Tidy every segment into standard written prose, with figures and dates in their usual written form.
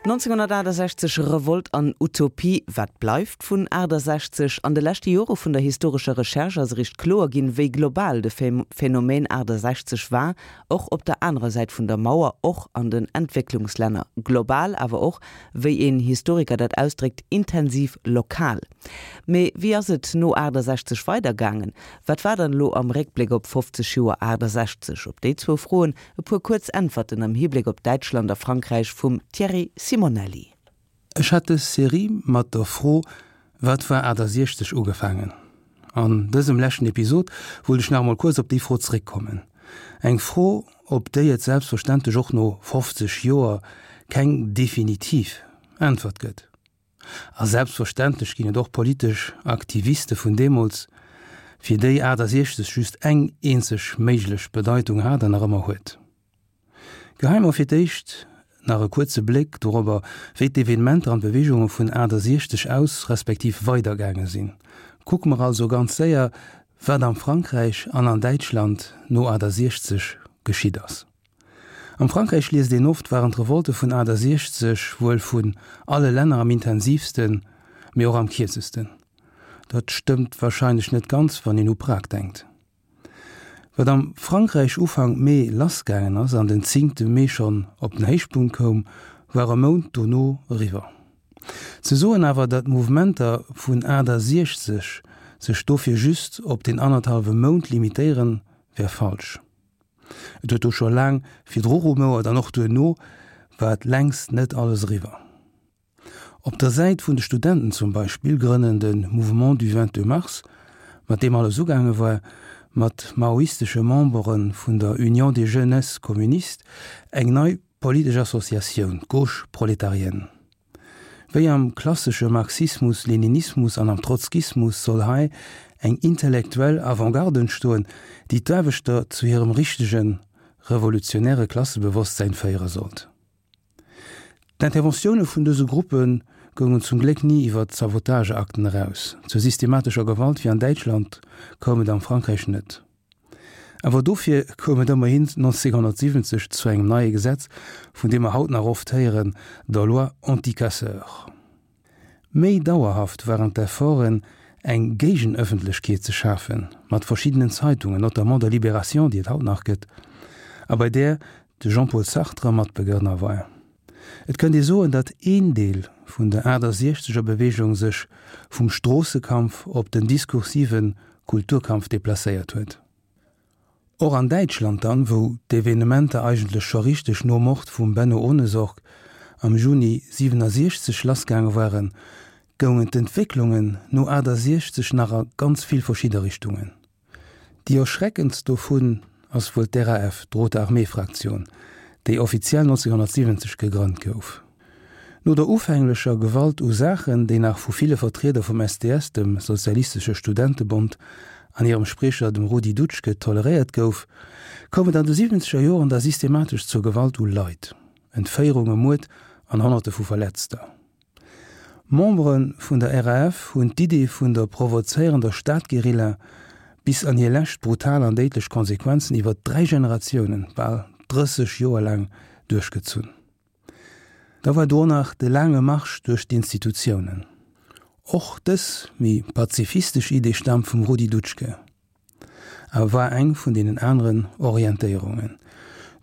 1968, Revolt an Utopie, Wat bleift vun 68? An de leschte Jore vun der historescher Recherche ass eréischt kloer ginn, wéi global de Phänomen 68 war, och op der anerer Säit vun der Mauer, och an den Entwécklungslänner. Global, awer och, wéi een Historiker dat ausdréckt, intensiv lokal. Mee wéi ass et no 68 weidergaangen? Wat war dann elo am Réckbléck op 50 Joer 68? Op déi zwou Froen E puer kuerz Äntwerten am Hibléck op Däitschland a Frankräich vum Thierry Simonelli. Ech hat dës Serie mat der Fro Wat war 68 ugefaangen. An dësem leschten Episod wollt ech nach emol kuerz op déi Fro zeréckkommen. Eng Fro, op déi et selbstverständlech och no 50 Joer keng definitiv Äntwert gëtt. A selbstverständlech ginn et och politesch Aktiviste vun deemools, fir déi 68 just eng eenzeg méiglech Bedeitung hat an nach ëmmer huet. Geheie mer fir d'éischt nach e kuerze Bléck dorobber, wéi d'Evenementer an d'Beweegunge vun 68 aus respektiv weidergaange sinn. Kucke mer also ganz séier, wat am Frankräich an an Däitschland no 68 geschitt ass. Am Frankräich liest een oft, waren d'Revolte vun 68 wuel vun alle Länner am intensivsten, mee och am kierzesten. Dat stëmmt warscheinlech net ganz, wann een u Prag denkt. Wat am Frankräich Ufank Mee lassgaangen ass an den zéngte Mee schonn op den Héichpunkt koum, war e Mount dono eriwwer. Ze soen awer, datt d'Mouvementer vun 68 sech dofir just op deen annerthallwe Mount limitéieren, wär falsch. Et huet do scho laang virdru rumouert an och duerno war et längst net alles eriwwer. Op der Säit vun de Studenten zum Beispill grënnen de Mouvement du 22 mars, mat deem alles ugaange war, mat maoistesche Membere vun der Union des Jeunesses Communistes eng nei politesch Associatioun, d'Gauche prolétarienne. Wéi am klassesche Marxismus-Leninismus an am Trotzkismus soll hei eng intellektuell Avantgarde entstoen, déi d'Aarbechter zu hirem richtege revolutionäre Klassebewosstsäin féiere sollt. D'Interventioune vun dëse Gruppe goungen zum Gléck ni iwwer Sabotageakten eraus. Zur systematescher Gewalt wéi an Däitschland koum et am Frankräich net. Awer dofir koum et ëmmerhin 1970 zu engem neie Gesetz, vun deem mer haut nach oft héieren, der Loi anti-casseurs. Méi dauerhaft waren d'Efforten, eng Géigenëffentlechkeet ze schafen, mat verschiddenen Zeitungen, notamment der Libération, déi et haut nach gëtt, a bei där de Jean-Paul Sartre Matbegrënner war. Et kënnt ee soen, datt een Deel vun der 68 er Beweegung sech vum Stroossekampf op den diskursive Kulturkampf deplacéiert huet. Och an Däitschland dann, wou d'Evenementer eigentlech scho richteg nom Mord vum Benno Ohnesorg am Juni 67 lassgaange waren, goungen d'Entwécklungen no 68 nach a ganz vill verschidde Richtungen. Déi erschreckendst dovun ass wuel d'RAF, d'Rote Armee Fraktion, déi offiziell 1970 gegrënnt gouf. No der ufänglecher Gewalt u Saachen, déi nach vu ville Vertrieder vum SDS, dem Sozialistesche Studentebond, an hirem Spriecher, dem Rudi Dutschke, toleréiert gouf, koum et an de siwwenzeger Joren da systematesch zur Gewalt u Leit, Entféierunge, Muerd an Honnerte vu Verletzter. Membere vun der RAF hunn d'Idee vun der provozéierender Stadguerilla bis an hir lescht brutal an déidlech Konsequenzen iwwer 3 Generatiounen, bal 30 Joer laang, duerchgezunn. Da war do nach de laange Marsch duerch d'Institutiounen. Och dës méi pazifistesch Idee staamt vum Rudi Dutschke. A war eng vun deenen aneren Orientéierungen.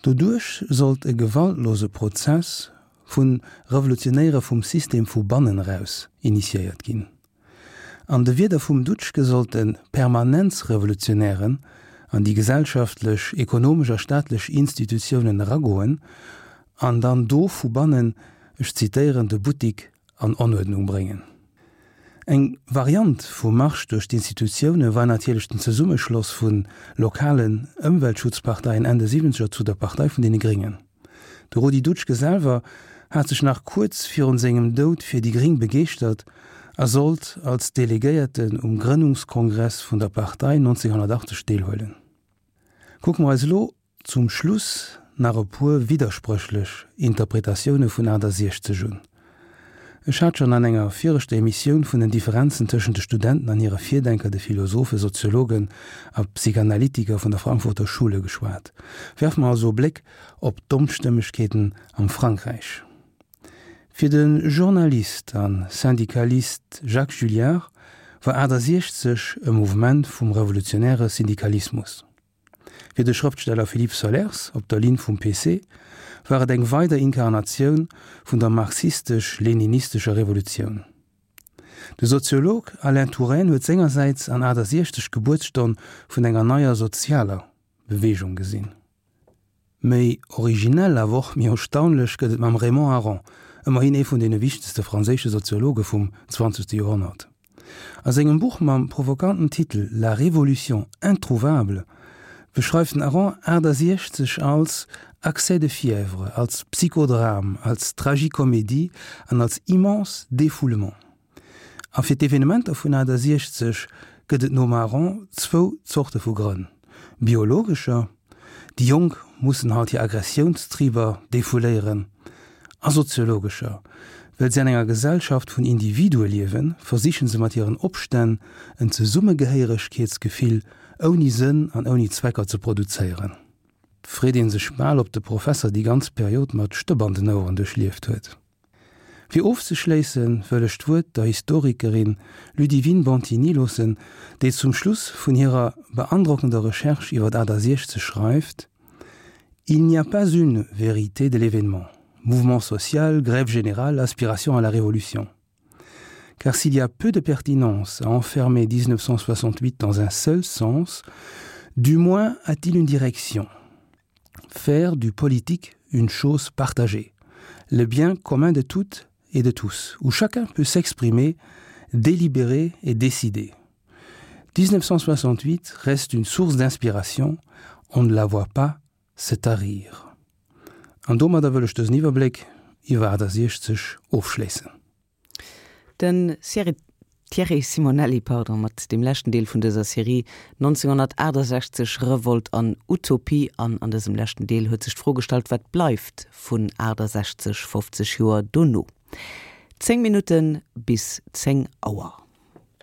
Doduerch sollt e gewaltlose Prozess vu Revolutionéiere vum System vu bannen eraus initiéiert ginn. An de Wierder vum Dutschke sollte Permanenzrevolutionären an déi gesellschaftlech, ekonomesch a staatlech Institutiounen eragoen an dann do vu bannen, ech zitéieren, de Buttik an Onuerdnung bréngen. Eng Variant vum Marsch duerch d'Institutioune war natierlech den Zesummeschloss vu lokalen Ëmweltschutzparteien Enn de Siwwenzeger zu der Partei vun deene Gréngen. De Rudi Dutschke selwer hat sech nach kuerz virun sengem Doud fir déi Gréng begeeschtert a sollt als Delegéierten um Grënnungskongress vun der Partei 1980 deelhuelen. Kucke mer eis elo Zum Schluss nach e puer widderspréchlech Interpretatioune vun 68 un. Ech hat schonn an enger viregter Emissioun vun den Differenzen tëschent de Studenten an hire Virdenker, de Philosophen, Soziologen a Psychanalytiker vun der Frankfurter Schule geschwat. Werfe mer also e Bléck op d'Onstëmmegkeeten am Frankräich. Fir de Journalist a Syndikalist Jacques Julliard war 68 e Mouvement vum revolutionäre Syndikalismus. Fir de Schrëftsteller Philippe Sollers, op der Linn vum PC, war et eng weider Inkarnatioun vun der marxistesch-leninistescher Revolutioun. De Soziolog Alain Touraine huet sengersäits an 68 d'Gebuertsstonn vun enger neier sozialer Beweegung gesinn. Méi originell, awer och méi erstaunlech gëtt et mam Raymond Aron, ëmmerhin ee vun deene wichtegste franséische Soziologe vum zwanzegste Joerhonnert. A sengem Buch mam provokanten Titel La révolution introuvable beschreift den Aron 68 als Accès de fièvre, als Psychodrame, als Tragicomédie an als immense Défoulement. A fir d'Evenementer vun 68 gëtt et nom Aron zwou Zorte vu Grënn, biologescher, déi Jonk mussen halt hir Aggressiounstriber defouléieren, a soziologescher, well si an enger Gesellschaft vun Individue liewen, versiche se mat hiren Opstänn en Zesummegehéieregkeetsgefill ouni Sënn an ouni Zwecker ze produzéieren. 't freet ee sech bal, ob de Professer déi ganz Period mat Stëpp an den Oueren duerchlieft huet. Fir ofzeschléisse wëll ech d'Wuert der Historikerin Ludivine Bantigny loossen, déi zum Schluss vun hirer beandrockender Recherche iwwer 68 schreift, Il n'y a pas une vérité de l'événement, mouvement social, grève générale, aspiration à la révolution. Car s'il y a peu de pertinence à enfermer 1968 dans un seul sens, du moins a-t-il une direction. Faire du politique une chose partagée, le bien commun de toutes et de tous, où chacun peut s'exprimer, délibérer et décider. 1968 reste une source d'inspiration, on ne la voit pas se tarir. An domadder wëll ech dësen Iwwerbléck iwwer 68 ofschléissen. Den Thierry Simonelli, pardon, mat deem leschten Deel vun dëser Serie 1968, Revolt an Utopie. An an dësem leschten Deel huet sech d'Fro gestallt, wat bleift vun 68, 50 Joer dono? 10 Minutte bis 10 Auer.